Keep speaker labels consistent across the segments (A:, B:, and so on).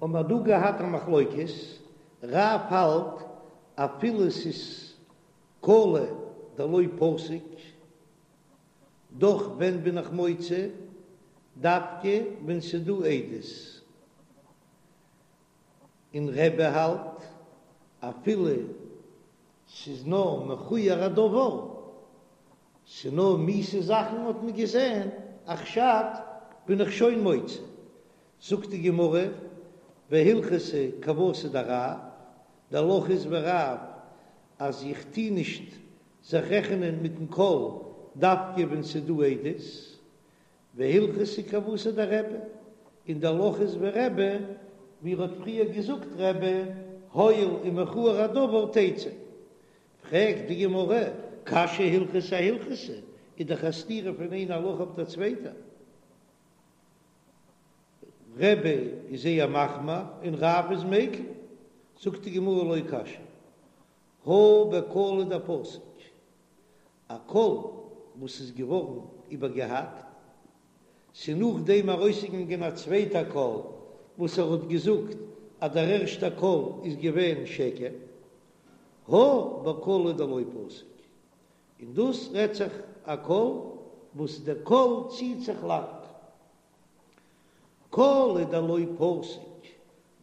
A: האבן מיר דא געהאט א מחלוקת, רב האלט אפילו ס'איז קלא דלא פסיק, דאך ווען בין איך מוציא? דווקא ווען ס'איז דא עדות. און רבי האלט אפילו ס'איז נאר מכוער הדבר, ס'איז נאר מיאוסע זאכן האט מען געזען, א חשד בין איך שוין מוציא. זאגט די גמרא, והלכתא כוותיה דרב, די הלכה איז ווי רב אז איך טוה נישט זיך רעכענען מיטן קול דווקא ווען ס'איז דא עדות, והלכתא כוותיה דרבי, און די הלכה איז ווי רבי, ווי ער האט פריער געזאגט רבי, הואיל ומכוער הדבר תצא. פרעגט די גמרא, קשיא הלכתא אהלכתא, איז דאך א סתירה פון איין הלכה אויף דער צווייטער. רבי איז זייער מחמיר און רב איז מיקל, זאגט די גמרא לא קשיא, הא בקלא דפסיק, א קול וואס איז געווארן איבערגעהאקט, ס'איז נאכדעם ארויסגעגאנגען א צווייטע קול וואס ער האט געזאגט אז דער ערשטע קול איז געווען שקר, הא בקלא דלא פסיק, און דאס רעדט זיך א קול וואס דער קול ציט זיך לאנג. קלא דלא פסיק,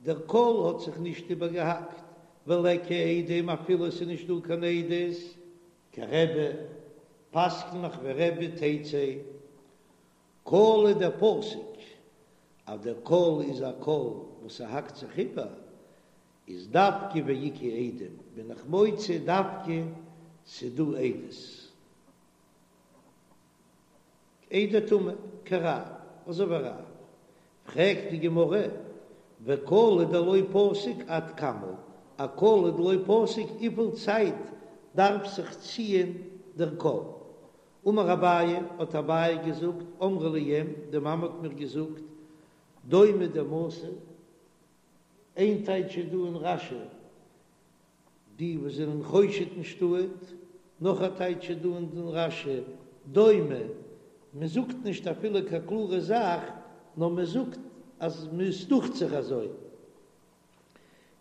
A: דער קול האט זיך נישט איבערגעהאקט, וליכא עדים אפילו עס איז נישט דא קיין עדות, כרבי, פסק'ן איך ווי רבי תצא. קלא דפסיק, אז דער קול איז א קול וואס ס'האקט זיך איבער, איז דווקא ואיכא עדים בין איך מוציא דווקא ס'דא עדות. עדי טומאה כרב, אזוי ווי רב. פרעגט די גמרא, וקלא דלא פסיק עד כמה, א קלא דלא פסיק וויפיל צייט דארף זיך ציען דער קול? אמר אביי, האט אביי געזאגט, אמרה לי אם, די מאמע האט מיר געזאגט, דומא דמתא, איין טייטש איז דא אין רש"י, די וואס זענען חושד אין שטאט, נאך א טייטש איז דא אין רש"י, דומא, מען זאגט נישט אפילו קיין קלארע זאך, נאר מען זאגט אז עס דוכט זיך אזוי.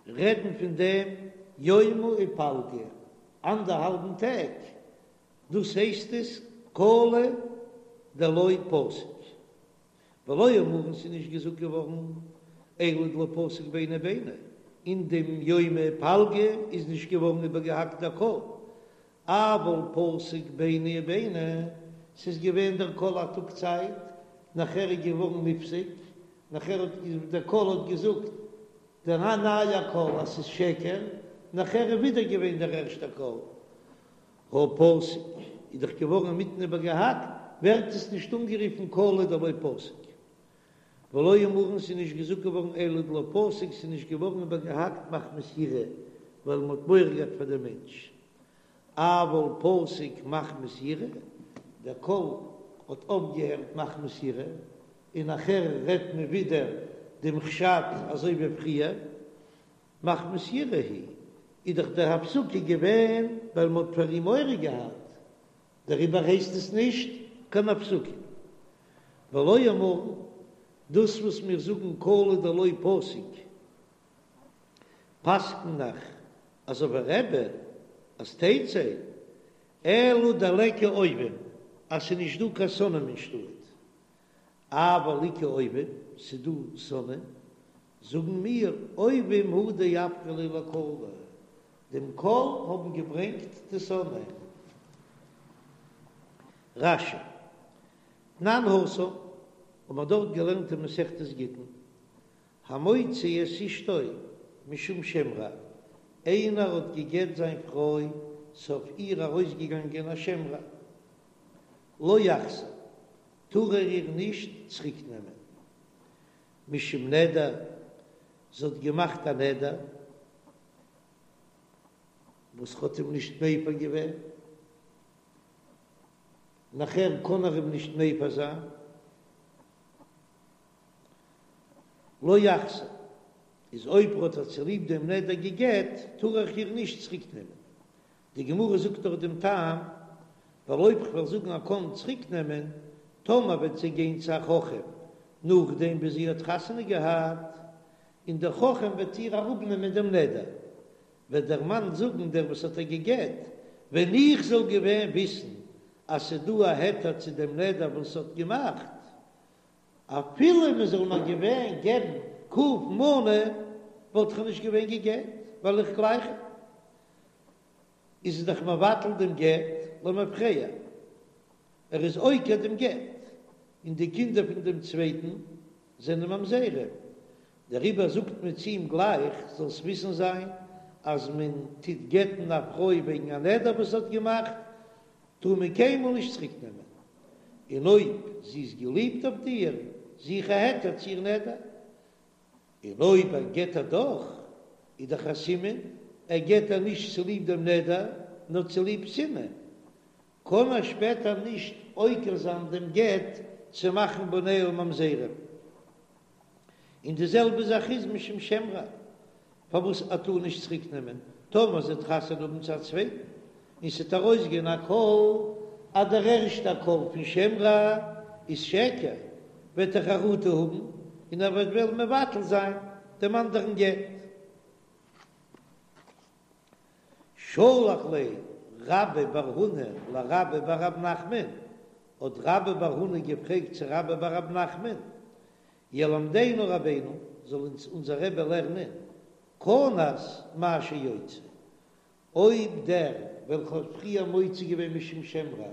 A: רעדן פון דעם יומא ופלגא, אנדערהאלבן טעג, דאס הייסט עס קלא דלא פסיק. ולא אמרן ס'איז נישט געזאגט געווארן אלא דלא פסיק ביני וביני, אין דעם יומא ופלגא איז נישט געווארן איבערגעהאקט דער קול, אבל פסיק ביני וביני, ס'איז געווען דער קול א טאג צייט, נאכער איז געווארן נפסק, נאכער האט דער קול האט געזאגט דער נייער קול אז ס'איז שקר, נאכער איז ווידער געווען דער ערשטער קול. הא פסיק איז דאך געווארן אינמיטן איבערגעהאקט, ווערט עס נישט אנגערופן קלא דלא פסיק. ולא אמרן ס'איז נישט געזאגט געווארן אלא דלא פסיק ס'איז נישט געווארן איבערגעהאקט מחמת יראה ווייל מ'האט מורא געהאט פאר דעם מענטש. אבל פסיק מחמת יראה, דער קול האט אויפגעהערט מחמת יראה, און נאכער רעדט מען ווידער דעם חשד אזוי ווי פריער. מחמת יראה הוא, איז דאך דער הפסקה געווען ווייל מ'האט פאר אים מורא געהאט, דעריבער הייסט עס נישט קיין הפסקה. ולא אמרן, דאס וואס מיר זאגן קלא דלא פסיק, פסק'ן איך אזוי ווי רבי אז תצא, אלא דליכא אויבים, אז ס'איז נישט דא קיין שונאים אין שטאט, אבל איכא אויבים, ס'איז דא שונאים, זאגן מיר, אויבים הוא דאפקו ליה לקלא, דעם קול האבן געברענגט די שונאים. רש"י, תנן התם, האבן מיר דארט געלערנט אין מסכת גיטין, המוציא את אשתו משום שם רע, איינער האט גע'גט זיין פרוי, ס'אויף איר ארויסגעגאנגען א שם רע, לא יחזיר, טאר ער איר נישט צוריק נעמען. משום נדר, זי האט געמאכט א נדר וואס האט אים נישט מפר געווען, נאכער קען ער אים נישט מפר זיין, לא יחזיר, איז אויב ער האט איר צוליב דעם נדר גע'גט, טאר ער איר נישט צוריק נעמען. די גמרא זאגט דאך דעם טעם, ווייל אויב כ'וועל זאגן ער קען צוריק נעמען, טאמער וועט זי גיין צו א חכם נאכדעם ווי זי האט חתונה געהאט, און דער חכם וועט איר אראפנעמען דעם נדר, וועט דער מאן זאגן דער וואס האט איר גע'גט, ווען איך זאל געווען וויסן אז ס'דא א היתר צו דעם נדר וואס האט געמאכט, אפילו מען זאל מיר געווען געבן ק מנה, וואלט איך נישט געווען גע'גט, ווייל איך גלייך אים. איז ער דאך מבטל דעם גט למפרע, ער איז עוקר דעם גט, און די קינדער פון דעם צווייטן זענען ממזרים, דעריבער זאגט מען צו אים גלייך, זאלסט וויסן זיין אז מען טוט גט'ן א פרוי וועגן א נדר וואס זי האט געמאכט, טאר מען קיינמאל נישט צוריק נעמען, און אויב זי איז געליבט אויף דיר, זוך א היתר צו איר נדר, און אויב ער גט איר דאך, איז דאך א סימן ער גט איר נישט צוליב דעם נדר, נאר צוליב שנאה, קען ער שפעטער נישט עוקר זיין דעם גט צו מאכן בניה ממזרים. און די זעלבע זאך איז משום שם רע, פארוואס ער טאר נישט צוריק נעמען טאמער זי וועט חתונה האבן צו א צווייטן, און ס'וועט ארויסגיין א קול אז דער ערשטער קול פון שם רע איז שקר, וועט ער חרטה האבן און ער וועט וועלן מבטל זיין דעם אנדערן גט. שלח ליה רבה בר הונא לרבה בר רב נחמן, האט רבה בר הונא געפרעגט צו רבה בר רב נחמן, ילמדנו רבינו, זאל אונז אונזער רבי לערנען, כנס מהו שיוציא, אויב דער וועלכע האט פריער מוציא געווען משום שם רע,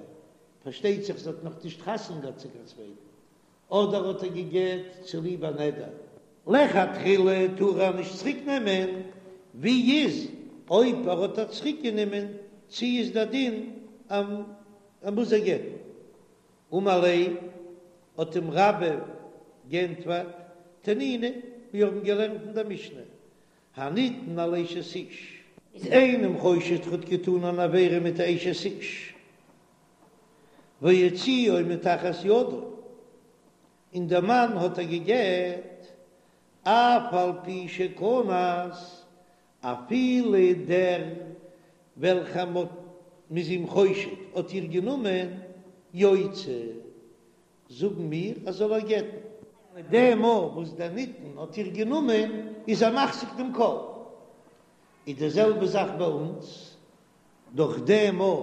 A: פארשטייט זיך זי האט נאך נישט חתונה געהאט צו קיין צווייטן, אדער האט ער גע'גט צוליב א נדר. לכתחילה טאר ער נישט צוריק נעמען, ווי איז אויב ער האט איר צוריק גענומען, צו איז דער דין אז ער מוז איר גט'ן? אמר ליה, האט אים רבה גענטפערט, תנינא, מיר האבן געלערנט אין דער משנה, הנטען על אשת איש. איז איינעם חושד ער האט געטאן אן עבירה מיט א אשת איש, והוציאה מתחת ידו, און דער מאן האט איר גע'גט, אף על פי שכנס, אפילו דער וועלכער מ'האט מ'איז אים חושד האט איר גענומען, יוציא, זאגן מיר אז זאל איר גט'ן. מיט דעם מאל וואס דער נטען האט איר גענומען איז ער מחזיק דעם קול. איז די זעלבע זאך ביי אונז, דורך דעם מאל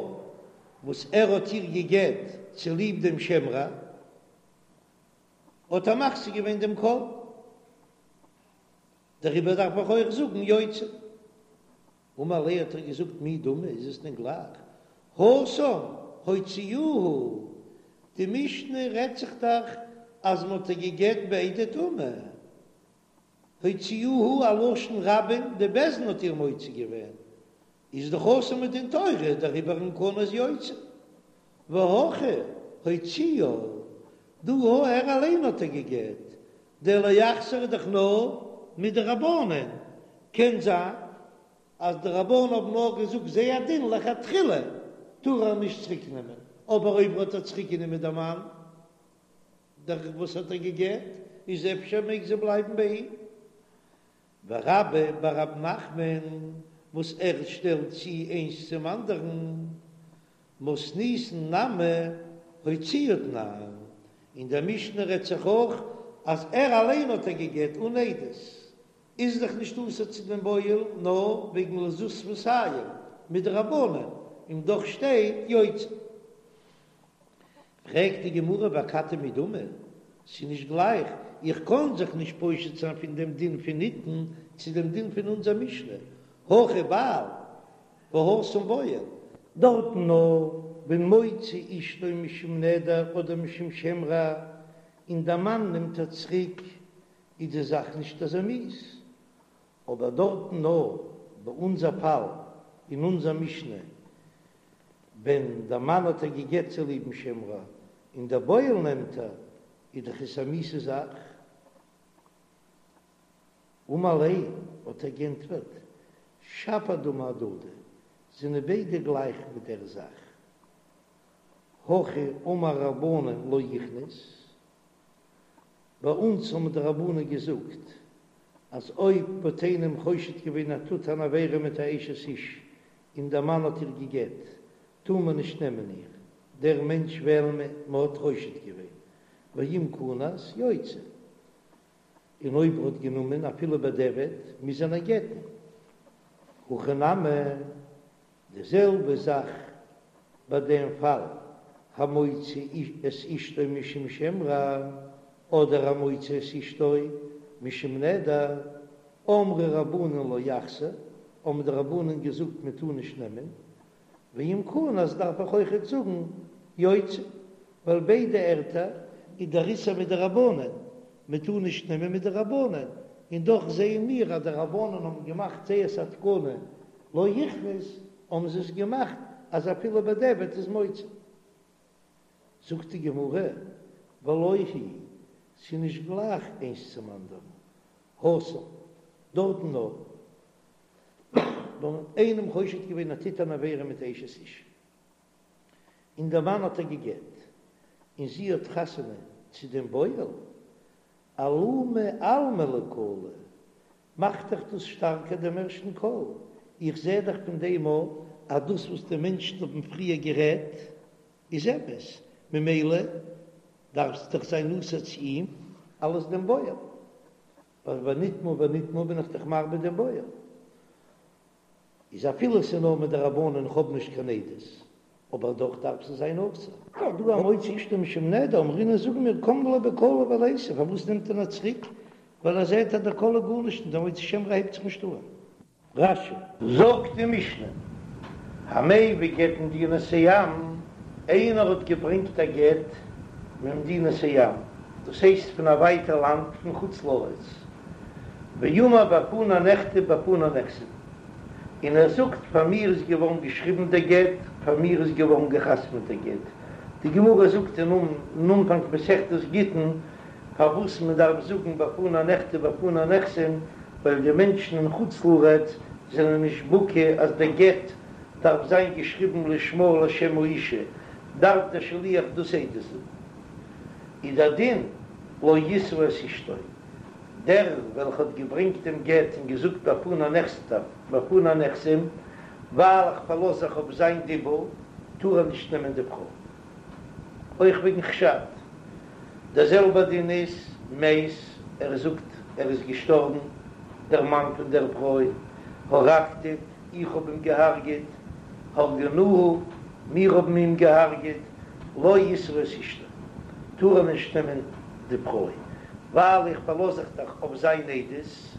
A: וואס ער האט איר גע'גט צוליב דעם שם רע, האט ער מחזיק געווען דעם קול. דעריבער דארף איך אויך זאגן יוציא. אמר ליה האט ער געזאגט מי דמי איז עס דען גלייך התם הוציאוה, די משנה רעדט זיך דאך אז מען האט איר גע'גט בעדי טומאה, הוציאוה א לשון רבים די בית דין האט איר מוציא געווען, איז דאך אסור מדין תורה דעריבער אם כנס יוציא, והכא הוציאה, דא הא ער אליין האט איר גע'גט, דער לא יחזיר איז דאך נאר מדרבנן, קען זיין אז די רבנן האבן נאר געזאגט זייער דין לכתחילה טאר ער נישט צוריק נעמען, אבער אויב האט ער צוריק גענומען דער מאן דער וואס האט איר גע'גט איז אפשר מעג זי בלייבן ביי אים. ורבה בר רב נחמן וואס ער שטעלט צו איינס צום אנדערן, מתניתין נמי הוציאה תנן, אין דער משנה רעדט זיך אויך אז ער אליין האט איר גע'גט אן עדות, איז דאך נישט אסור צו דעם בועל נאר וועגן לזות שפתים מדרבנן, און דאך שטייט יוציא. פרעגט די גמרא ואכתי מי דמי, ס'איז נישט גלייך, איך קען זיך נישט פושט זיין פון דעם דין פון נטען צו דעם דין פון אונזער משנה, הכא בעל והתם בועל. דארטן נאר ווען מוציא אשתו משום נדר אדער משום שם רע, און דער מאן נעמט איר צוריק, איז די זאך נישט אזוי מיאוס, אבער דארטן נאר ביי אונזער פאל אין אונזער משנה ווען דער מאן האט איר גע'גט צוליבן שם רע און דער בועל נעמט איר, איז דאך עס א מיאוסע זאך. אמר ליה, האט ער גענטפערט, שפיר דמי אהדדי, זענען ביידע גלייך מיט דער זאך. הכא אמור רבנן לא יכנוס, ביי אונז האבן די רבנן געזאגט אז אויב מ'האט איינעם חושד געווען ער טוט אן עבירה מיט א אשת איש און דער מאן האט איר גע'גט, טאר מען נישט נעמען איר, דער מענטש וועלן מ'האט חושד געווען, ואם כנס יוציא. און אויב ער האט גענומען אפילו בדיעבד מוז ער איר גט'ן. הכא נמי, די זעלבע זאך ביי דעם פאל, המוציא את אשתו משום שם רע, אדער המוציא את אשתו משום נדר, אמרו רבנן לא יחזיר, האבן די רבנן געזאגט מען טאר נישט נעמען, ואם כנס דארף איך אויכעט זאגן יוציא, ווייל ביידע ערטער איז דער איסור מדרבנן, מען טאר נישט נעמען מדרבנן, און דאך זעען מיר אז די רבנן האבן געמאכט זייערס א תקנה לא יכנוס, האבן זיי עס געמאכט אז אפילו בדיעבד איז מוציא. זאגט די גמרא, ולא היא, ס'איז נישט גלייך איינס צום אנדערן, התם, דארטן נאר ווען מ'האט איינעם חושד געווען ער טוט אן עבירה מיט אשת איש, און דער מאן האט איר גע'גט, און זי האט חתונה צו דעם בועל, אלומי אלמא לקלא, מאכט דאך דאס שטארקער דעם ערשטן קול, איך זע דאך פון דעם אויך אז דאס וואס די מענטשן האבן פריער גערעדט איז אמת, ממילא דארף זי דאך זיין נשוי צו אים אלס דעם בועל, ווייל ונטמאה ונטמאה בין איך דאך מרבה דעם בועל. איז אפילו ס'איז נאר מדרבנן איך האב נישט קיין עדות, אבער דאך דארף זי זיין אסור. דא המוציא אשתו משום נדר, אמרינן זאגן מיר קם ליה בקלא וליתי, פארוואס נעמט ער איר צוריק? ווייל ער זעט אז דער קול איז גארנישט און דער מוציא שם רע הייבט זיך נישט אן. רש"י. זאגט די משנה, המביא גט ממדינת הים, איינער האט געברענגט א גט ממדינת הים, דאס הייסט פון א ווייטע לאנד פון חוץ לארץ, ואמר בפני נכתב בפני נחתם, און ער זאגט פאר מיר איז געווארן געשריבן דער גט, פאר מיר איז געווארן געחתמעט דער גט. די גמרא זאגט אין אנפאנג מסכת גיטין פארוואס מען דארף זאגן בפני נכתב בפני נחתם, ווייל די מענטשן אין חוץ לארץ זענען נישט בקי אז דער גט דארף זיין געשריבן לשמה ולשם האישה, דארף דער שליח דאס עדות זאגן. איז דער דין לא ישא את אשתו. דער וועלכע האט געברענגט דעם גט און געזאגט בפני נכתב בפני נחתם, ווייל איך פארלאז זיך אויף זיין דיבור, טאר ער נישט נעמען די פרוי. אויך וועגן חשד. דער זעלבער דין איז מת, ער זאגט ער איז געשטארבן, דער מאן פון דער פרוי, הרגתיו, איך האב אים געהארגעט, הרגנוהו, מיר האבן אים געהארגעט, לא ישא את אשתו, טאר ער נישט נעמען די פרוי, ווייל איך פארלאז זיך דאך אויף זיין עדות,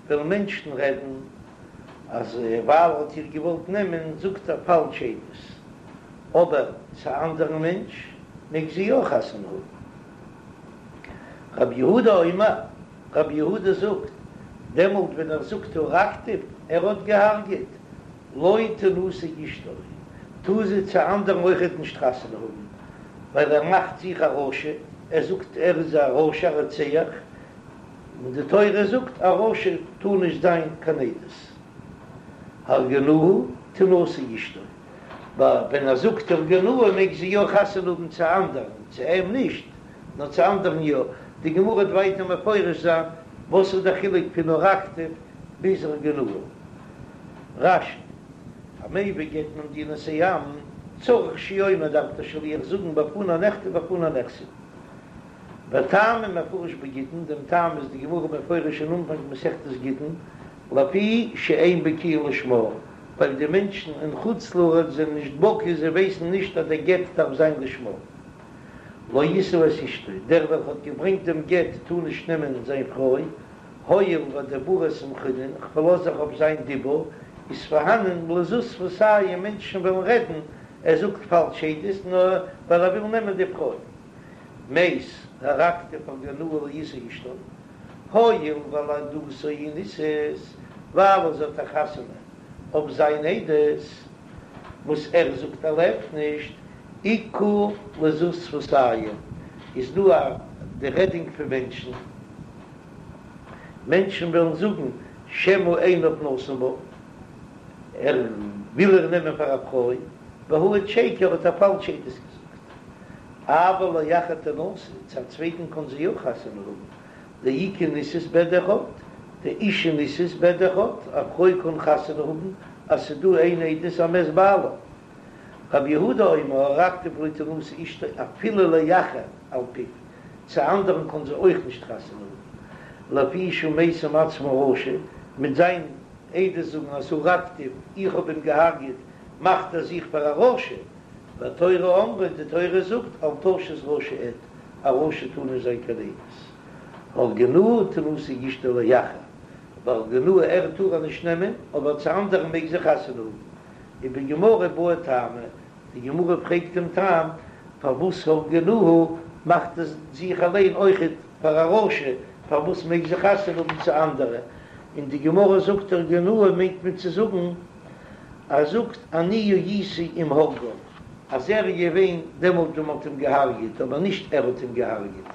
A: וועלן מענטשן רעדן אז ווייל ער האט איר געוואלט נעמען זאגט ער פאלש עדות, אבער צו א אנדערן מענטש מעג זי יא חתונה האבן. רבי יהודה אומר, רבי יהודה זאגט, דעמאלט ווען ער זאגט הרגתיו, ער האט געהארגעט, לא תנשא אשתו, טאר זי צו אנדערן אויכעט נישט חתונה האבן, ווייל ער מאכט זיך א רשע, ער זאגט ער איז א רשע א רוצח, און די תורה זאגט א רשע טאר נישט זיין קיין עדות, הרגנוהו תנשא אשתו, ווען ער זאגט הרגנוהו מעג זי יא חתונה האבן צו אנדערן, צו אים נישט, נאר צו אנדערן יא, די גמרא וועט ווייטער מפרש זיין וואס איז דער חילוק פון הרגתיו ביז הרגנוהו. רש"י, המביא גט ממדינת הים, צריך שיאמר דארף דער שליח זאגן בפני נכתב בפני נחתם. וטעמא מפרש בגיטין, דעם טעם איז די גמרא מפרש אין אנפאנג מסכת גיטין, לפי שאין בקיאין לשמה, ווייל די מענטשן אין חוץ לארץ זענען נישט בקי, זיי ווייסן נישט אז דער גט דארף זיין לשמה. לא ישא את אשתו, דער וועלכע האט געברענגט דעם גט טאר נישט נעמען זיין פרוי, הואיל ואדיבוריה סמכינן, כ'פארלאז זיך אויף זיין דיבור, איז פארהאנען לזות שפתים מענטשן וועלן רעדן, ער זאגט פאלש עדות נאר ווייל ער וויל נעמען די פרוי. מת, הרגתיו הרגנוהו לא ישא אשתו, הואיל ועל עדותו היא נישאת, ווייל זי האט א חתונה אויף זיין עדות, וואס ער זאגט ער לעבט נישט, איכא לזות שפתים, איז דא א די רעדינג פון מענטשן. מענטשן וועלן זאגן שמא עיניו נתן בה, ער וויל איר נעמען פאר א פרוי, והעיד שקר האט ער פאלש עדות געזאגט. אבל לאחר תנשא, צו א צווייטן קען זי יא חתונה האבן, דאיכא נישאת בעד אחד, דאשה נישאת בעד אחד, א פרוי קען חתונה האבן אז ס'דא איין עדות אז מת בעלה. רבי יהודה אומר הרגתיו לא תנשא אשתו אפילו לאחר על פיו, צו אנדערן קען זי אויך נישט חתונה האבן. לפי שהוא משים עצמו רשע, מיט זיין עדות זאגן אז הרגתיו, איך האב אים געהארגעט, מאכט ער זיך פאר א רשע, והתורה אמרה, די תורה זאגט, אל תשת רשע עד, א רשע טאר נישט זיין קיין עדות. הרגנוהו תנשא אשתו לאחר, והרגנוהו ער טאר איר נישט נעמען, אבער צו אנדערן מעג זי חתונה האבן. ובגמרא בעו טעמא, די גמרא פרעגט דעם טעם פארוואס הרגנוהו מאכט ער זיך אליין אויכעט פאר א רשע, פארוואס מעג זי חתונה האבן צו אנדערע, און די גמרא זאגט הרגנוהו מיינט מען צו זאגן ער זאגט אני הייתי עם הורגיו אז ער איז געווען דעמאלט ווען מען האט אים געהארגעט אבער נישט ער האט אים געהארגעט.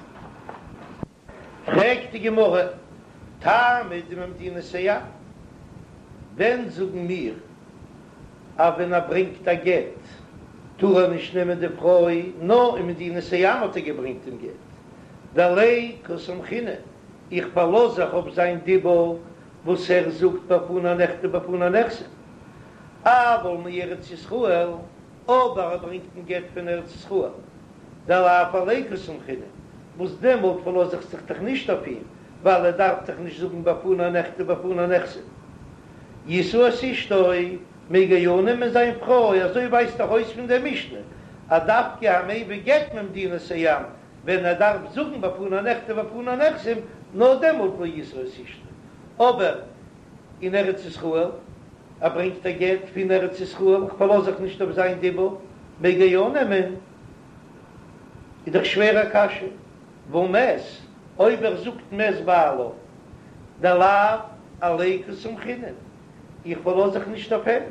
A: פרעגט די גמרא, טעמא דממדינת הים, ווען זאגן מיר אז ווען ער ברענגט א גט טאר ער נישט נעמען די פרוי, נאר אין מדינת הים האט ער געברענגט דעם גט, דעליה קא סמכינן, איך פארלאז זיך אויף זיין דיבור וואס ער זאגט בפני נכתב בפני נחתם, אבל מארץ ישראל, אבער ער ברענגט דעם גט פון ארץ ישראל, דלאו עליה קא סמכינן, וואס דעמאלט פארלאז איך זיך דאך נישט אויף אים, ווייל ער דארף דאך נישט זאגן בפני נכתב בפני נחתם. ישא את אשתו, מעג ער יא נעמען זיין פרוי, אזוי ווייזט דאך אויס פון דער משנה, אז דווקא המביא גט ממדינת הים, ווען ער דארף זאגן בפני נכתב בפני נחתם, נאר דעמאלט לא ישא את אשתו. אבער אין ארץ ישראל, ער ברענגט א גט פון ארץ ישראל, איך פארלאז זיך נישט אויף זיין דיבור, מעג ער יא נעמען? איז דאך שווער א קשיא, והא מת, אויב ער זאגט מת בעלה, דלאו עליה קא סמכינן, איך פארלאז זיך נישט אויף אים.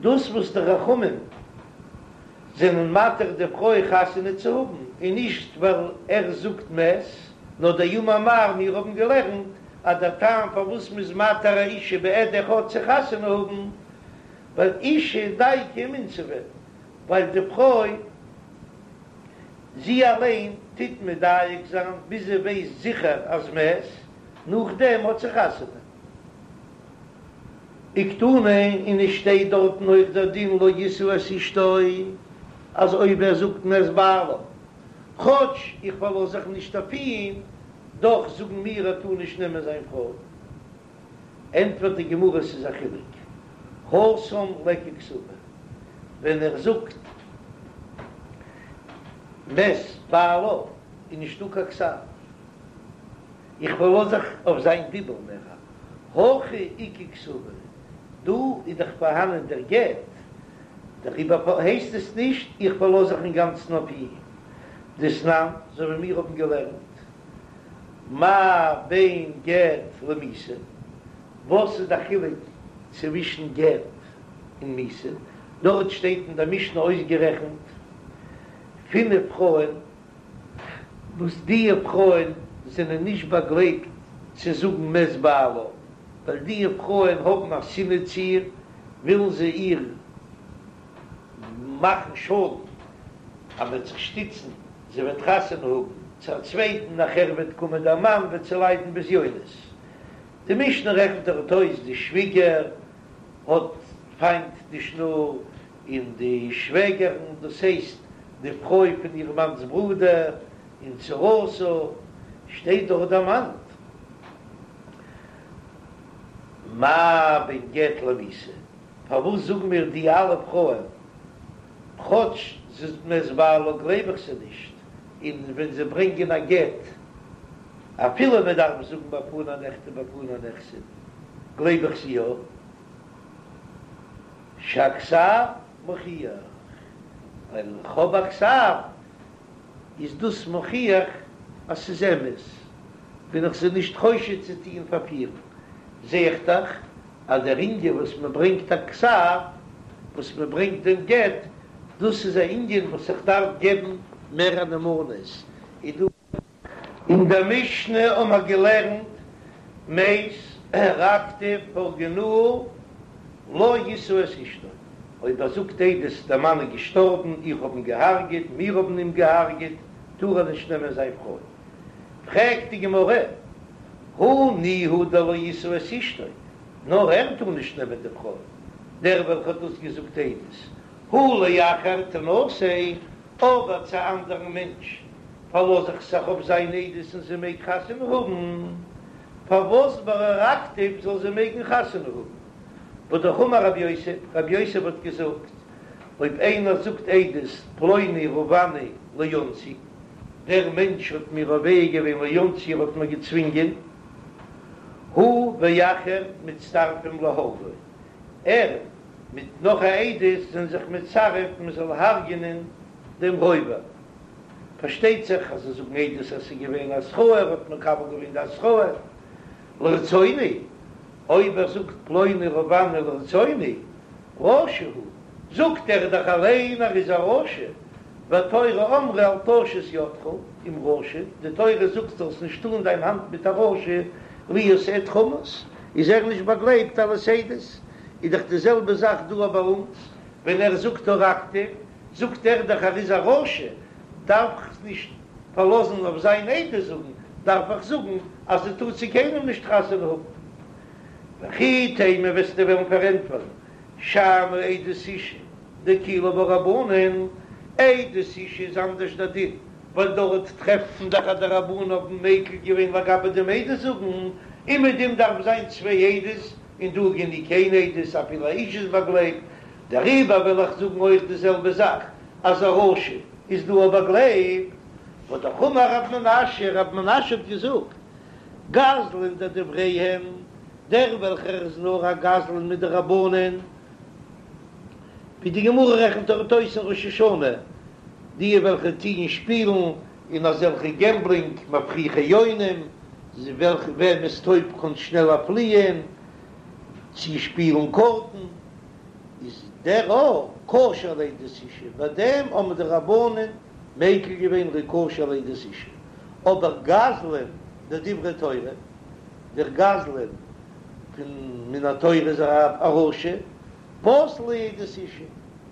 A: דאס וואס די חכמים זענען מתיר די פרוי חתונה צו האבן, איז נישט ווייל ער זאגט מת, נאר דאמר מר, מיר האבן געלערנט אז דער טעם פארוואס מ'איז מתיר א אישה בעד אחד צו חתונה האבן, ווייל אישה דייקא ומינסבא, ווייל די פרוי זי אליין טוט מדייק זיין ביז זי ווייסט זיכער אז מת, נאכדעם האט זי חתונה. וקתני, און עס שטייט דארטן אויך דער דין לא ישא את אשתו, אז אויב ער זאגט מת בעלה, כאטש איך פארלאז זיך נישט אויף אים, דאך זאגן מיר ער טאר נישט נעמען זיין פרוי. ענטפערט די גמרא ס'איז א חילוק, התם ליכא כתבא, ווען ער זאגט מת בעלה איז נישטא קיין כתב, איך פארלאז זיך אויף זיין דיבור מער, הכא איכא כתבא, דא איז דאך פארהאנען דער גט, דעריבער הייסט עס נישט איך פארלאז זיך אינגאנצן אויף אים, דתנן, אזוי ווי מיר האבן געלערנט. מה בין גט למיתה? וואס איז די חילוק צווישן גט און מיתה? דארט שטייט אין די משנה אויסגערעכנט פינף פרויען וואס די פרויען זענען נישט באגלייבט צו זאגן מת בעלה, ווייל די פרויען האבן א שנאה צו איר, ווילן זיי איר מאכן שאדן אז מ'וועט זיך שטיצן זי וועט חתונה האבן צו א צווייטן, נאכער וועט קומען דער מאן וועט זי ליידן בזיונות. די משנה רעכנט דארט אויס די שוויגער האט פיינט די שנור, און די שוועגערן, דאס הייסט די פרוי פון איר מאנ'ס ברודער, און צרתה, שטייט דארט דערמאנט מה בין גט למיתה, פארוואס זאגן מיר די אלע פרויען כאטש זי זאגט מת בעלה גלייב איך זיי נישט, און ווען זיי ברענגען א גט אפילו מען דארף זאגן בפני נכתב בפני נחתם גלייב איך זיי יא, שהכתב מוכיח, ווייל איך האב א כתב איז דאס מוכיח אז ס'איז אמת, בין איך זיי נישט חושד צו טוען פארפירן, זע איך דאך אז דער ענין וואס מען ברענגט א כתב, וואס מען ברענגט דעם גט, דאס איז א ענין וואס איך דארף געבן מער א נאמנות, איז דא. אין דער משנה האבן מיר געלערנט מת הרגתיו הרגנוהו לא ישא את אשתו, אויב ער זאגט עדות דער מאן איז געשטארבן, איך האב אים געהארגעט, מיר האבן אים געהארגעט, טאר ער נישט נעמען זיין פרוי. פרעגט די גמרא, הא ניהו דלא ישא את אשתו, נאר ער טאר נישט נעמען די פרוי, דער וועלכער האט דאס געזאגט עדות, הא לאחר תנשא, אבער צו א אנדערן מענטש פארלאז איך זיך אויף זיין עדות און זי מעג חתונה האבן. פארוואס ביי הרגתיו זאל זי מעגן חתונה האבן? והאמר רב יוסף, רב יוסף האט געזאגט, אויב איינער זאגט עדות פלוני רבעני לאונסי, דער מענטש האט מיר רובע געווען לאונסי ער האט מיר געצווינגען, הוא ואחר מצטרפים להורגו, ער מיט נאך א עדות זענען זיך מצרף מען זאל הרג'ענען דעם רובע. פארשטייט זיך אז זיי זאגן עדות אז ס'איז געווען התראה, ער האט מקבל געווען די התראה לרצוני, אויב ער זאגט פלוני רבעני לרצוני, רשע הוא, זאגט ער דאך אליין ער איז א רשע, והתורה אמרה אל תשת ידך עם רשע, די תורה זאגט זאלסט נישט טאן דיין האנט מיט א רשע, להיות עד חמס, איז ער נישט באגלייבט אלס עדות, איז דאך די זעלבע זאך דא ביי אונז, ווען ער זאגט הרגתיו, זאגט ער דאך ער איז א רשע, דארף איך נישט פארלאזן אויף זיין עדות זאגן, דארף איך זאגן אז זי טאר צו קיינעם נישט חתונה האבן. וכי תימא וועסטו וועלן פארענטפערן שאני עדות אשה דאקילו בה רבנן, עדות אשה איז אנדערש דער דין, ווייל דארט טרעפט מען דאך אז די רבנן האבן מיקל געווען לגבי דעם עדות זאגן, און מיט דעם דארף זיין צוויי עדות, און דא גענוג איין עדות אפילו א אשה איז באגלייבט, דעריבער וועל איך זאגן אויך די זעלבע זאך אז א רשע איז דא א באגלייבט, והאמר רב מנשיא, רב מנשיא האט געזאגט, גזלן דדבריהם, דער וועלכער איז נאר א גזלן מדרבנן, ווי די גמרא רעכנט דארט אויס אין ראש השנה, די וועלכע טוען שפילן אין אזעלכע געמבלינג מפריחי יונים, וועלכע וועמענס טויב קען שנעלער פליען, צו שפילן קארטן. איז דער א כשר לעדות אשה, ביי דעם האבן די רבנן מיקל געווען ער איז כשר לעדות אשה, אבער גזלן דדברי תורה, דער גזלן פון מן התורה איז א רשע, פסול לעדות אשה,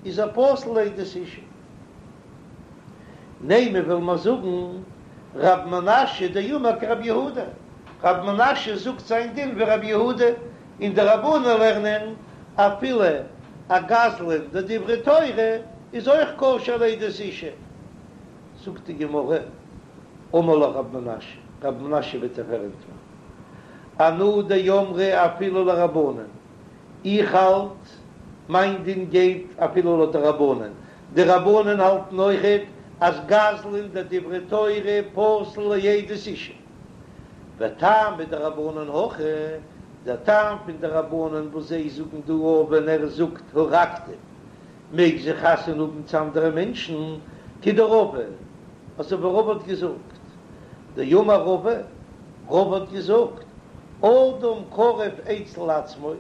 A: איז ער פסול לעדות אשה. נימא וויל מען זאגן רב מנשיא דאמר כרבי יהודה, רב מנשיא זאגט זיין דין ווי רבי יהודה, און די רבנן לערנען אפילו א גזלן דדברי תורה איז אויך כשר לעדות אשה. זאגט די גמרא, אמר לך רב מנשיא, רב מנשיא וועט דיר פארענטפערן, אנא דאמרי אפילו לרבנן, איך האלט מיין דין גייט אפילו לויט די רבנן, די רבנן האלטן אויכעט אז גזלן דדברי תורה פסול לעדות אשה. וטעמא דרבנן הכי, דער טעם פון די רבנן וואס זיי זאגן דא אויף ווען ער זאגט הרגתיו מעג זי חתונה האבן צו אנדערע מענטשן, כדרבא, אזוי ווי רבא האט געזאגט, דאמר רבא, רבא האט געזאגט, אדם קרוב אצל עצמו,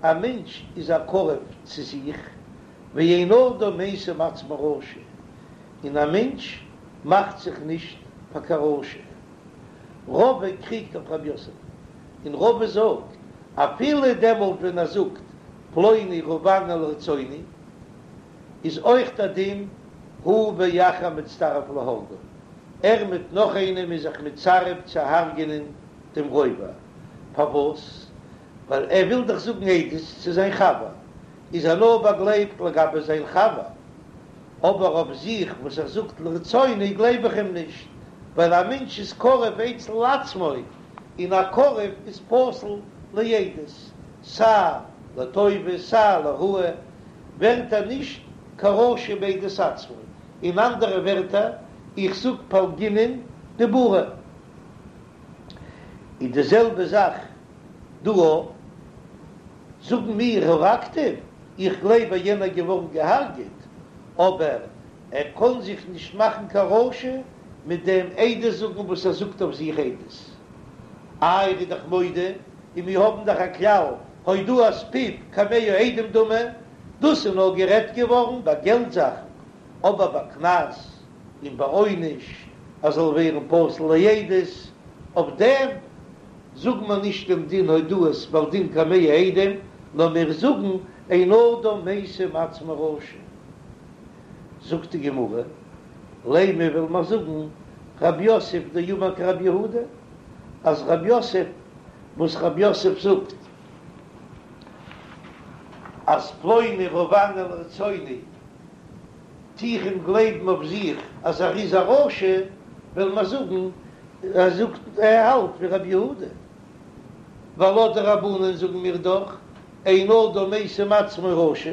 A: א מענטש איז א קרוב צו זיך, ואין אדם משים עצמו רשע, און א מענטש מאכט זיך נישט פאר קיין רשע. רבא קריגט אויף רב יוסף, און רבא זאגט, אפילו דעמאלט ווען ער זאגט פלוני רבעני לרצוני, איז אויך דער דין הוא ואחר מצטרף להורגו, ער מיט נאך איינעם איז זיך מצרף צו הרג'ענען דעם רובע, פארוואס? ווייל ער וויל דאך זאגן עדות צו זיין חבר, איז ער נאר באגלייבט לגבי זיין חבר, אבער אויף זיך וואס ער זאגט לרצוני גלייב איך אים נישט, ווייל א מענטש איז קרוב אצל עצמו, און א קרוב איז פסול לעדות, סיי לטובה סיי לרעה, ווערט ער נישט קיין רשע בעדות עצמו, אין אנדערע ווערטער, איך זאג פלגינן דיבורא. איז די זעלבע זאך דא אויך, זאגן מיר הרגתיו, איך גלייב אז יענער געווארן געהארגעט, אבער ער קען זיך נישט מאכן קיין רשע מיט דעם עדות זאגן וואס ער זאגט אויף זיך עדות. איי ער איז דאך מודה, און מיר האבן דאך א כלל הודאת פיו כמאה עדים דמי, דאס איז נאר גערעדט געווארן ביי געלט זאכן, אבער ביי קנס און ביי עונש אז זאל ווערן פסול לעדות, אויף דעם זאגן מיר נישט דעם דין הודאת בעל דין כמאה עדים, נאר מיר זאגן אין אדם משים עצמו רשע. זאגט די גמרא, לימא וויל מען זאגן רב יוסף דאמר כרבי יהודה, אז רב יוסף וואס רב יוסף זאגט אז פלוני רבעני לרצוני טו איך אים גלייבן אויף זיך אז ער איז א רשע, וועל מיר זאגן ער זאגט ער האלט ווי רבי יהודה. ווייל לויט די רבנן זאגן מיר דאך אין אדם משים עצמו רשע,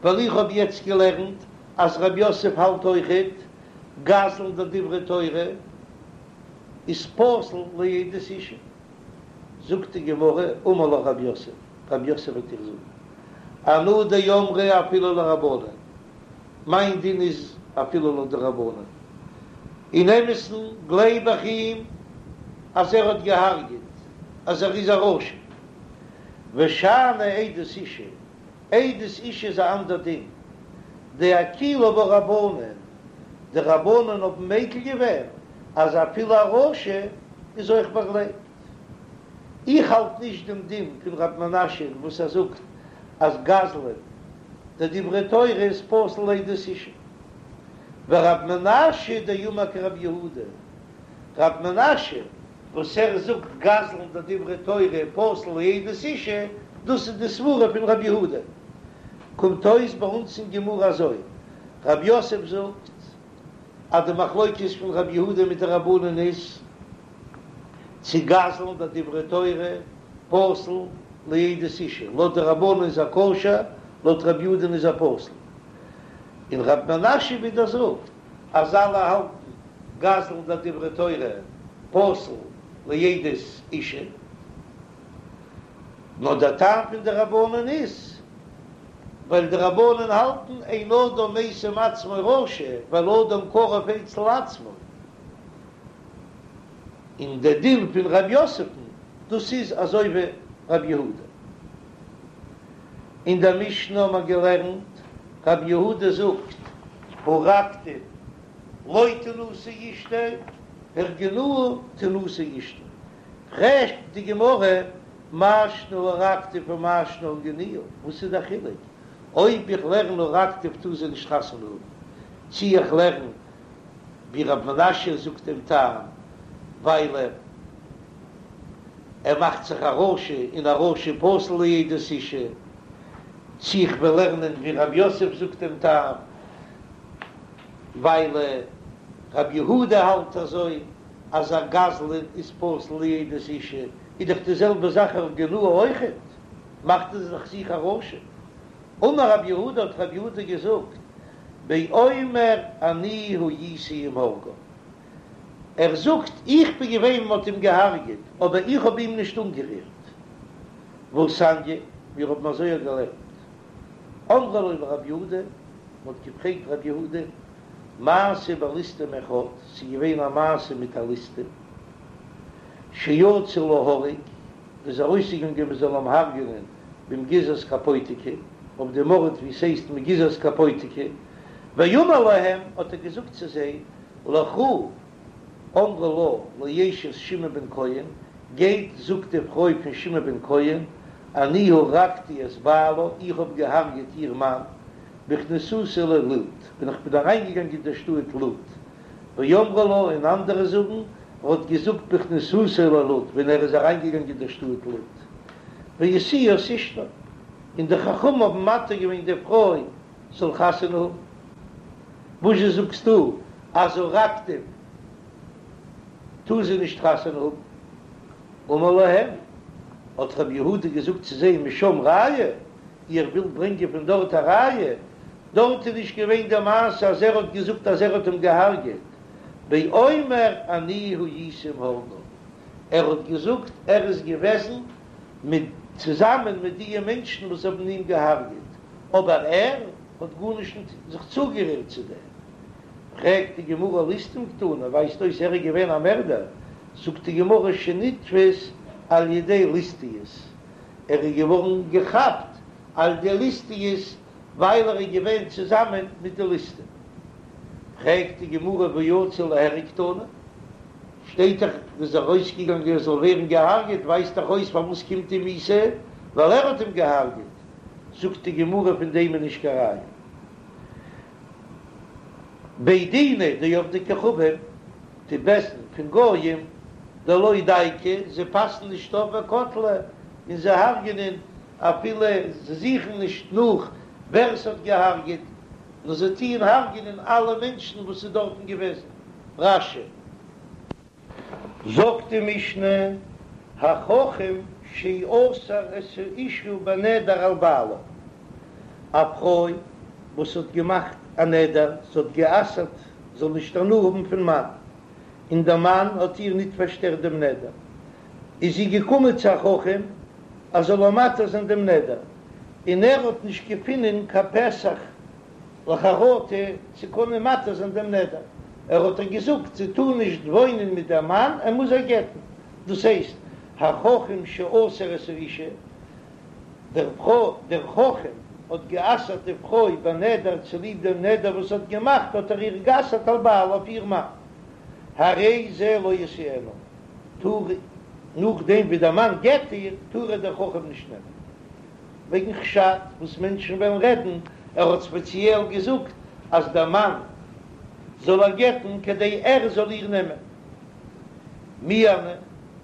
A: ווייל איך האב יעצט געלערנט אז רב יוסף האלט אויכעט גזלן דדברי תורה איז פסול לעדות אשה. זאגט די גמרא, אמר לך רב יוסף, רב יוסף וועט דיר זאגן, אנא דאמרי אפילו לרבנן, מיין דין איז אפילו לויט די רבנן, אין אמת'ן גלייב איך אים אז ער האט געהארגעט, אז ער איז א רשע, ושאני עדות אשה, עדות אשה איז א אנדער דין, דאקילו בה רבנן, די רבנן האבן מיקל געווען אז אפילו א רשע איז אויך באגלייבט. איך האלט נישט דעם דין פון רב מנשיא וואס ער זאגט אז גזלן דדברי תורה איז פסול לעדות אשה. ורב מנשיא דאמר כרב יהודה, רב מנשיא וואס ער זאגט גזלן דדברי תורה פסול לעדות אשה, דאס איז די סברה פון רב יהודה. קומט אויס ביי אונז אין גמרא אזוי, רב יוסף זאגט אז די מחלוקת פון רב יהודה מיט די רבנן איז צו גזלן דדברי תורה פסול לעדות אשה, לויט די רבנן איז ער כשר, לויט רב יהודה'ן איז ער פסול. און רב מנשיא ווידער זאגט אז אלע האלטן גזלן דדברי תורה פסול לעדות אשה. נאר דער טעם פון די רבנן איז ווייל די רבנן האלטן אין אדם משים עצמו רשע ווייל אדם קרוב אצל עצמו, און דער דין פון רב יוסף'ן דאס איז אזוי ווי רב יהודה. אין דער משנה האט מען געלערנט רב יהודה זאגט הרגתיו לא תנשא אשתו הרגינוהו תנשא אשתו, פרעגט די גמרא, מאי שנא הרגתיו ומאי שנא הרגינוהו, וואס איז דער חילוק אויב איך לערן הרגתיו טאר זי נישט חתונה האבן, צי איך לערן ווי רב מנשיא זאגט דעם טעם ווייל ער מאכט זיך א רשע און א רשע פסול לעדות אשה, צי איך וועל לערנען ווי רב יוסף זאגט דעם טעם ווייל רב יהודה האלט אזוי. אז א גזלן איז פסול לעדות אשה, איז דאך די זעלבע זאך הרגינוהו אויכעט, מאכט ער זיך זיך א רשע. אמר רב יהודה האט רב יהודה געזאגט, באומר אני הייתי עם הורגיו, ער זאגט איך בין געווען ווען מ'האט אים געהארגעט, אבער איך האב אים נישט אנגערירט. והתניא, מיר האבן אזוי געלערנט. אמרו לו לרב יהודה, מ'האט געפרעגט רב יהודה, מעשה בליסטים אחד, ס'איז געווען א מעשה מיט א ליסטים, שיצא להורג, איז ארויסגעגאנגען מען זאל אים הרג'נען במגיזת קפוטיקי, אויף דעם ארט ווי ס'הייסט מגיזת קפוטיקי, ואמר להם, האט ער געזאגט צו זיי, לכו אמרו לה לאשת שמעון בן כהן, גייט זאגט די פרוי פון שמעון בן כהן, אני הרגתי את בעלה, איך האב געהארגעט איר מאן, בכניסתי ללוד, ווען איך בין אריינגעגאנגען אין דער שטאט לוד. ואמרי לה, און אנדערע זאגן, ער האט געזאגט בכניסתו ללוד, ווען ער איז אריינגעגאנגען אין דער שטאט לוד. והשיאוה את אשתו, און די חכמים האבן מתיר געווען די פרוי זאל חתונה האבן. וואזשע זאגסטו אז הרגתיו טאר זי נישט חתונה האבן? אמר להם, האט רבי יהודה געזאגט צו זיי, משם ראיה, איר ווילט ברענגען פון דארט א ראיה? דארט איז נישט געווען די מעשה אז ער האט געזאגט אז ער האט אים געהארגעט, באומר אני הייתי עם הורגיו, ער האט געזאגט ער איז געוועזן מיט צוזאמען מיט דיע מענטשן וואס האבן אים געהארגעט, אבער ער האט גארנישט זיך צוגערירט צו דעם. פרעגט די גמרא ליסטים קתני, ווייזט אויס ער איז געווען א מערדער, זאגט די גמרא שנתפס על ידי ליסטיות, ער איז געווארן געכאפט על ידי ליסטיות ווייל ער איז געווען צוזאמען מיט די ליסטים. פרעגט די גמרא והא יצא ליהרג קתני, שטייט דאך ער איז ארויסגעגאנגען ער זאל ווערן געהארגעט, ווייזט דאך אויס פארוואס קומט אים מיתה, ווייל ער האט אים געהארגעט, זאגט די גמרא פון דעם איז נישט קיין ראיה. בי דינא דעובדי כוכבים, די בית דין פון גויים, דלא דייקי, זיי פאסן נישט אויף וקטלי, און זיי הרג'נען אפילו זיי זוכן נישט נאך ווער ס'האט געהארגעט, נאר זיי טוען הרג'נען אלע מענטשן וואס איז דארטן געוועזן. רש"י. זאגט די משנה. החכם שאסר את האשה בנדר על בעלה, א פרוי וואס האט געמאכט א נדר, זי האט גע'אסר'ט זאל נישט הנאה האבן פון מאן, און דער מאן האט איר ניט פארשטערט דעם נדר, איז זי געקומען צו א חכם אז זאל איר מתיר זיין דעם נדר, און ער האט נישט געפונען קיין פתח לחרטה צו קענען מתיר זיין דעם נדר, ער האט איר געזאגט זי טאר נישט וואוינען מיט דעם מאן, ער מוז איר גט'ן, דאס הייסט החכם שאסר את האשה, דער דער חכם האט גע'אסר'ט די פרוי בנדר צוליב דעם נדר וואס האט געמאכט האט ער איר גע'אסר'ט על בעלה אויף איר מאן, הרי זה לא ישאנה, טאר נאכדעם ווי דער מאן גט איר טאר איר דער חכם נישט נעמען. וועגן חשד וואס מענטשן וועלן רעדן, ער האט ספעציעל געזאגט אז דער מאן זאל איר גט'ן כדי ער זאל איר נעמען. מיאנה,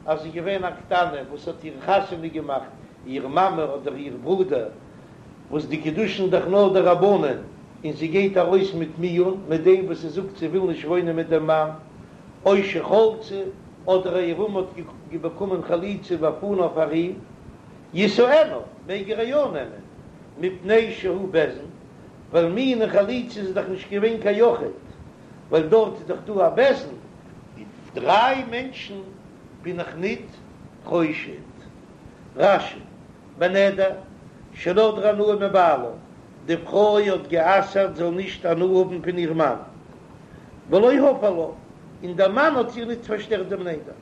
A: אז זי איז געווען א קטנה וואס האט איר חתונה געמאכט איר מאמע אדער איר ברודער, וואס די קידושין דאך נאר דרבנן, און זי גייט ארויס מיט מיאון מיט דעם וואס זי זאגט זי וויל נישט וואוינען מיט דעם מאן, או שחלצה, אדער א יבם האט באקומען חליצה בפניו פאר אים. ישאנה, מעג ער איר יא נעמען, מפני שהוא בית דין, ווייל מיאון און חליצה איז דאך נישט געווען קיין יחיד, ווייל דארט איז דאך דא א בית דין, און דריי מענטשן בין איך ניט חושד. רש"י, בנדר, שנדרה הנאה מבעלה, די פרוי האט גע'אסר'ט זאל נישט הנאה האבן פון איר מאן, ולא הפר לה, און דער מאן האט איר ניט פארשטערט דעם נדר.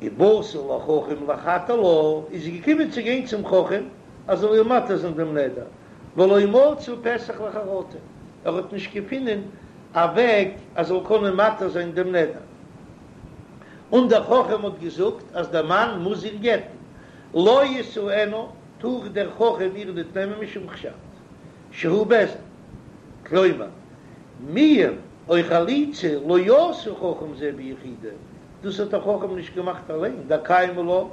A: ובאתה לחכם להתיר לה, איז זי געקומען צו גיין צום חכם אז זאל איר מתיר זיין דעם נדר, ולא מצא פתח לחרטה, ער האט נישט געפונען א וועג אז זאל קענען מתיר זיין דעם נדר, און דער חכם האט געזאגט אז דער מאן מוז איר גט'ן, לא ישאנה, טאר דער חכם איר ניט נעמען משום חשד שהוא בית דין, כלומר, מיאון או חליצה לא עשה חכם זה ביחידו, דאס האט דער חכם נישט געמאכט אליין, דקיימא לן,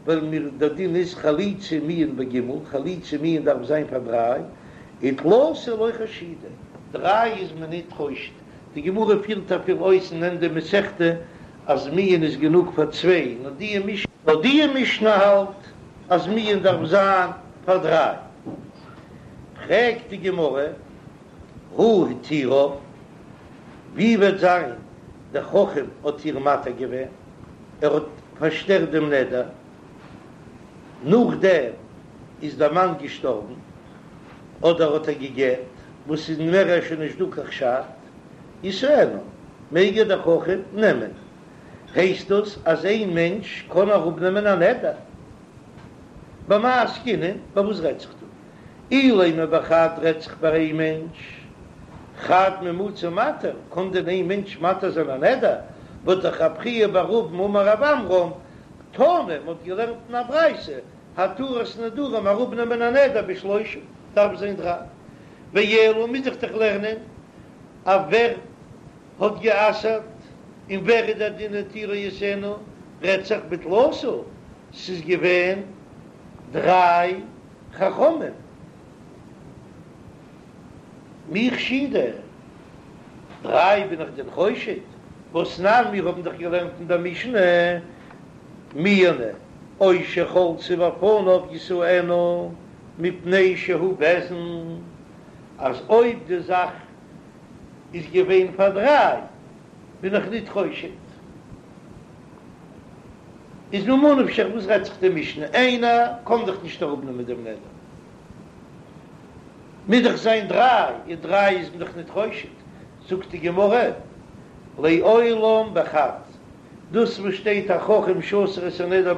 A: ווייל מיר דער דין איז חליצה מיאון בג', חליצה מיאון דארף זיין פאר דריי, ותלתא לא חשידי, דריי איז מען ניט חושד, די גמרא פירט אפילו אויס אין ענדע מסכתא אז מיאון איז גענוג פאר צוויי, נאר די משנה, נאר די משנה האלט אז מיאון דארף זיין פאר דריי. פרעגט די גמרא, הא התירה, ווי וועט זיין דער חכם האט איר מתיר געווען, ער האט פארשטערט דעם נדר, נאכדעם איז דער מאן געשטארבן, אדער האט ער גע'גט, וואס איז מער שוין נישט דא קיין חשד, ישאנה, מעג איר דער חכם נעמען, הייסט דאס אז איין מענטש קען אראפנעמען א נדר? במאי עסקינן, ביי וואס רעדט זיך דא? אילימא בחד רעדט זיך ביי איין מענטש, חד מי מצי מתיר, קען דען איין מענטש מתיר זיין א נדר? והא דאך רב חייא בר אבין אמר רב עמרם, תנא, מען האט געלערנט אין א ברייתא, התרת נדרים אראפנעמען א נדר בשלושה, דארף זיין דריי, ואלא מוז איך דאך לערנען אויף ווער האט גע'אסר'ט און ווער איז דער דין התירה ישאנה, רעדט זיך בתלתא, ס'איז געווען דריי חכמים מי חשידי, דריי בין איך דען חושד? והתנן מיר האבן דאך געלערנט אין דער משנה מיאנה או שחלצה בפניו ישאנה מפני שהוא בית דין, אז אויב די זאך איז געווען פאר דריי בין איך ניט חושד. איז ממה נפשך וואס רעדט זיך די משנה? איינער קען דאך נישט אראפנעמען דעם נדר, מוז דאך זיין דריי, און דריי איז מען דאך ניט חושד. זאגט די גמרא, לעולם בחד, דאס וואס שטייט החכם שאסר את הנדר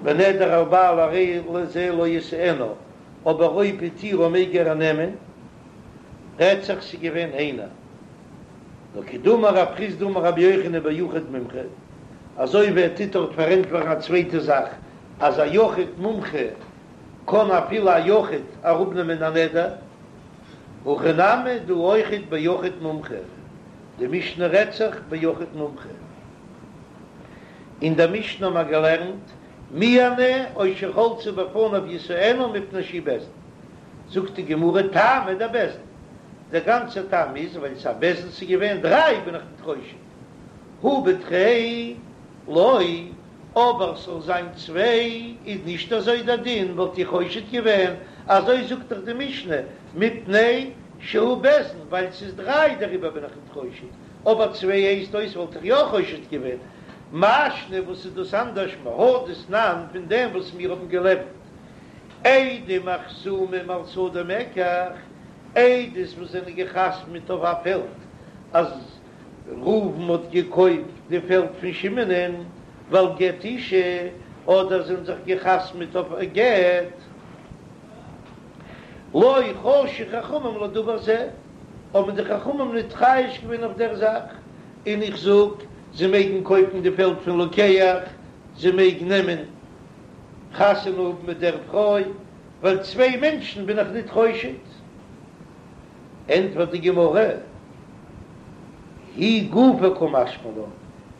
A: בנדר על בעלה הרי זה לא ישאנה, אבער אויב התירה מעג ער נעמען, רעדט זיך ס'איז געווען איינער. נאר כדאמר רב חסדא אמר רבי יוחנן ביחיד מומחה, אזוי ווי ער טוט דארט פארענטפערן א צווייטע זאך, אז א יחיד מומחה קען אפילו א יחיד אראפנעמען א נדר, הכא נמי דא אויכעט ביחיד מומחה, די משנה רעדט זיך ביחיד מומחה. אין דער משנה האבן מיר געלערנט מיאנה או שחלצה בפניו ישאנה מפני שהוא בית דין. זאגט די גמרא טעמא דבית דין, דער גאנצער טעם איז ווייל ס'איז א בית דין ס'איז געווען דריי בין איך ניט חושד, הא בתרי לא. אבער ס'זאל זיין צוויי איז נישט אזוי דער דין, וואלט איך חושד געווען, אזוי זאגט דאך די משנה, מפני שהוא בית דין, ווייל ס'איז דריי דעריבער בין איך ניט חושד, אבער צוויי הייסט אויס וואלט איך יא חושד געווען. מאי שנא וואס איז דאס אנדערש מהא דתנן פון דעם וואס מיר האבן געלערנט עדים החתומים על שדה מקח, עדות וואס זענען געחתמעט אויף א פעלד אז ראובן האט געקויפט די פעלד פון שמעונ'ען ועל גט אשה, אדער זענען זיך געחתמעט אויף א גט, לא חשו חכמים לדבר זה, האבן די חכמים ניט חושש געווען אויף דער זאך, און איך זאג, זיי מעגן קויפן די פעלד פון לוקח, זיי מעגן נעמען חתונה האבן מיט דער פרוי, ווייל צוויי מענטשן בין איך ניט חושד. ענטפערט די גמרא, היא גופא קא משמע לן,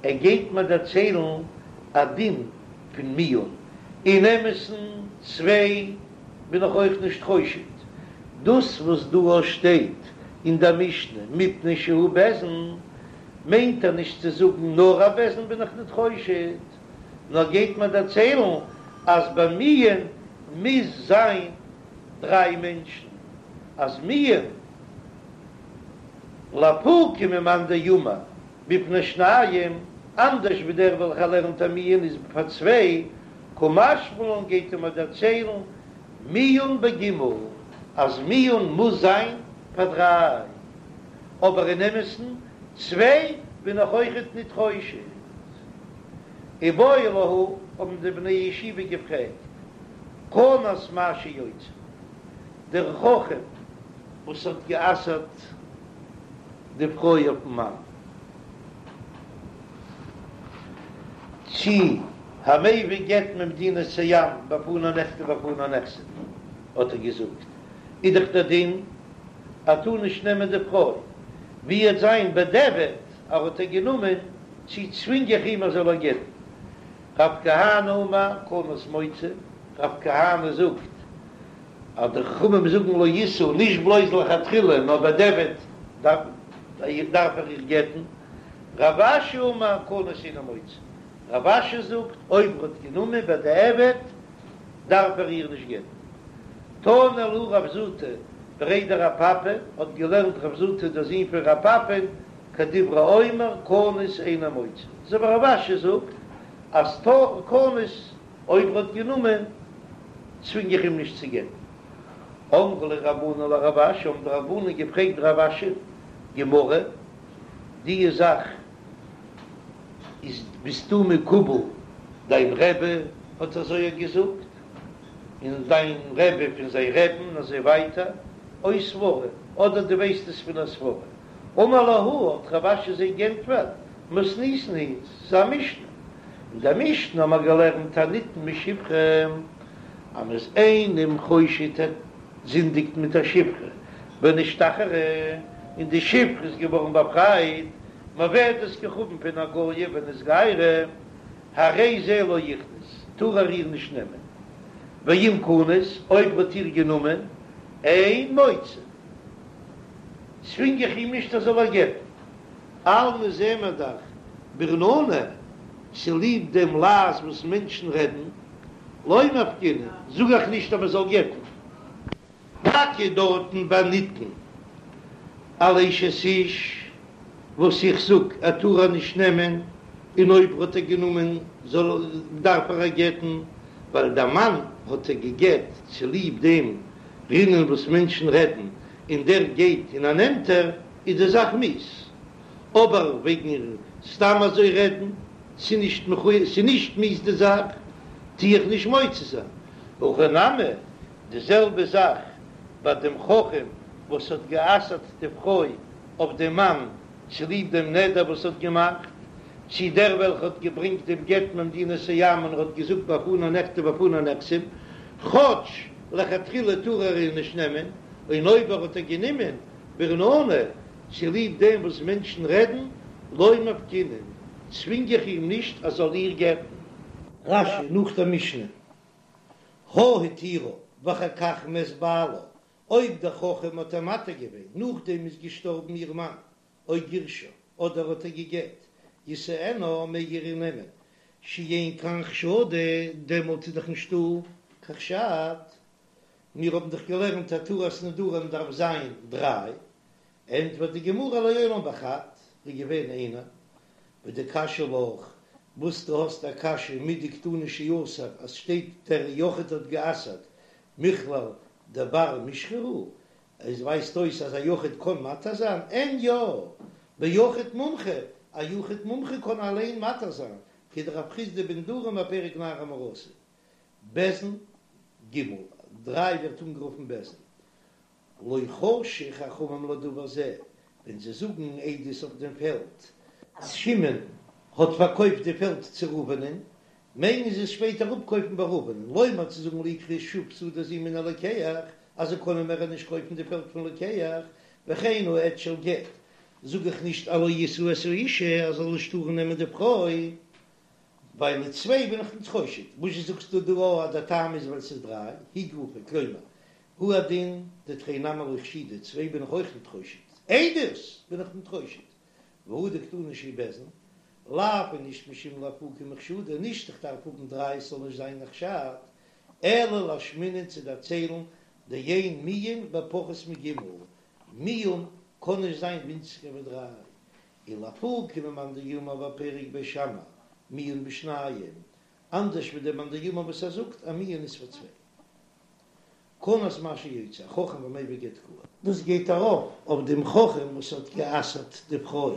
A: ער גייט מיר דערציילן א דין פון מיאון, אין אמת'ן צוויי בין איך אויך נישט חושד, דאס וואס דא שטייט אין דער משנה מפני שהוא בית דין, מיינט ער נישט צו זאגן נאר א בית דין בין איך ניט חושד, נאר גייט מיר דערציילן אז ביי מיאון מוז זיין דריי מענטשן, אז מיאון לאפוקי ממאן דאמר בפני שניים, אנדערש ווי דער וועלכער לערנט אז מיאון איז פאר צוויי, קא משמע לן גייט ער מיר דערציילן מיאון בגימל אז מיאון מוז זיין פאר דריי, אבער אין אמת'ן צוויי בין איך אויכעט ניט חושד. איבעיא להו האבן די בני ישיבה געפרעגט, כנס מה שיוציא, דער חכם וואס האט גע'אסר'ט די פרוי אויפ'ן מאן, צי המביא גט ממדינת הים בפני נכתב ובפני נחתם, האט ער געזאגט, איז דאך דער דין ער טאר נישט נעמען די פרוי, ווי עט זיין בדיעבד ער האט איר גענומען, צי צווינג איך אים ער זאל איר גט'ן? רב כהנא אמר כנס מוציא, רב כהנא זאגט אז די חכמים זאגן לא ישא נישט בלויז לכתחילה נאר בדיעבד דארף ער איר גט'ן, רב אשי אמר כנס אינו מוציא, רב אשי זאגט אויב ער האט גענומען בדיעבד דארף ער איר נישט גט'ן. תני להו רב זוטא בריה דרב פפא האט געלערנט רב זוטא דער זון פון רב פפא'ן כדברי האומר כנוס אינו מוציא, אזוי ווי רב אשי זאגט אז כנס אויב ער האט גענומען צווינג איך אים נישט צו גט'ן. אמרו ליה רבנן לרב אשי האבן די רבנן געפרעגט רב אשי, גמרא, די זאך איז ביסטו מקובל דיין רבי האט אזוי געזאגט און דיין רבי פון זיין רבי'ן און אזוי ווייטער, או סברא, אדער דו ווייסט עס פון א סברא. אמר להו, האט רב אשי זיי גענטפערט, מתניתין היא, ס'איז א משנה. אין דער משנה האבן מיר געלערנט הנטען משפחה, אז מ'איז איינעם חושד ער זינדיגט מיט א שפחה, ונשתחררה, און די שפחה איז געווארן באפרייט, מעובדת כוכבים פון א גויה ונתגיירה, הרי זה לא יכנוס, טאר ער איר נישט נעמען. ואם כנס, אויב האט איר גענומען, אין מוציא. צווינג איך אים נישט ער זאל איר גט'ן. אלמא זעען מיר דאך ברננה, צוליב דעם לעז וואס מענטשן רעדן, לא מפקינן, זאג איך נישט אז מען זאל גט'ן. טאקע דארטן ביי נטען על אשת איש, וואס איך זאג ער טאר איר נישט נעמען, און אויב האט ער גענומען זאל דארף ער איר גט'ן, ווייל דער מאן האט איר גע'גט צוליב דעם רינון וואס מענטשן רעדן, און דער גייט און ער נעמט איר, איז די זאך מיאוס. אבער וועגן סתם אזוי רעדן, ס'איז נישט מכוער, ס'איז נישט מיאוס די זאך, טו איך נישט מוציא זיין. הכא נמי, די זעלבע זאך ביי דעם חכם וואס האט גע'אסר'ט די פרוי אויף דעם מאן צוליב דעם נדר וואס האט געמאכט, צי דער וועלכע האט געברענגט דעם גט ממדינת הים און ער האט געזאגט בפני נכתב ובפני נחתם, כאטש לכתחילה טאר ער איר נישט נעמען, און אויב ער האט איר גענומען ברננה צוליב דעם וואס מענטשן רעדן, לא מפקינן, צווינג איך אים נישט ער זאל איר גט'ן. רש"י נאך דער משנה, הא התירה ואחר כך מת בעלה, אויב דער חכם האט איר מתיר געווען נאכדעם איז געשטארבן איר מאן, או גירשה, אדער האט איר גע'גט, ישאנה, מעג ער איר נעמען. שאין כאן חשדה, דעמאלט איז דאך נישטא קיין חשד, מיר האבן דאך געלערנט התרת נדרים דארף זיין דריי, ענטפערט די גמרא לעולם בחד, איז געווען איינער, ודקשיא לך, וואס דו האסט א קשיא מדקתני שאסר אז שטייט דער יחיד האט גע'אסר'ט מכלל דבר מישחא הוא, עס ווייזט אויס אז א יחיד קען מתיר זיין, אין יא, ביחיד מומחה, א יחיד מומחה קען אליין מתיר זיין, כדרב חסדא בנדרים בפרק נערה המאורסה, בית דין ג', דריי ווערט אנגערופן בית דין. לא חשו חכמים לדבר זה, ווען זיי זאגן עדות אויף דעם פעלד, אז שמעון האט פארקויפט די פעלד צו ראובנ'ען, מעגן זיי עס שפעטער אפקויפן ביי ראובנ'ען, לומר צו זאגן לא יקחו שוב שדה זו מן הלוקח, אז זיי קענען מער נישט קויפן די פעלד פון לוקח, וכן העד של גט, זאג איך נישט אז לא ישא את האשה, אז זאל נישט טארן נעמען די פרוי, ווייל די צוויי בין איך נישט חושד, וואס זשע זאגסטו דא אז דער טעם איז ווייל ס'איז דריי, היא גופא, כלומר, הוא הדין דתרי נמי לא חשידי, צוויי בין איך אויך ניט חושד, עדות בין איך ניט חושד, והא דקתני שהוא בית דין, לאו איז נישט משום לאפוקי מחשדה, נישט איך דארף האבן דריי עס זאל נישט זיין א חשד, אלא לאשמועינן צו דערציילן דאין מיאון בפחות מג', מיאון קען נישט זיין ווינציגער ווי דריי, ולאפוקי ממאן דאמר בפרק בית שמאי מיאון בשניים, אנדערש ווי דער מאן דאמר וואס ער זאגט אז מיאון איז פאר צוויי. כנס מה שיוציא החכם והמביא גט קאי. דאס גייט ארויף אויף דעם חכם וואס האט גע'אסר'ט די פרוי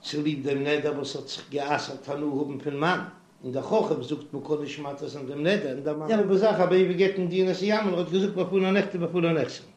A: צוליב דעם נדר וואס האט זיך גע'אסר'ט הנאה האבן פון מאן, און דער חכם זאגט מען קען נישט מתיר זיין דעם נדר, און דער מאן. זעלבע זאך המביא גט ממדינת הים און ער האט געזאגט בפני נכתב ובפני נחתם.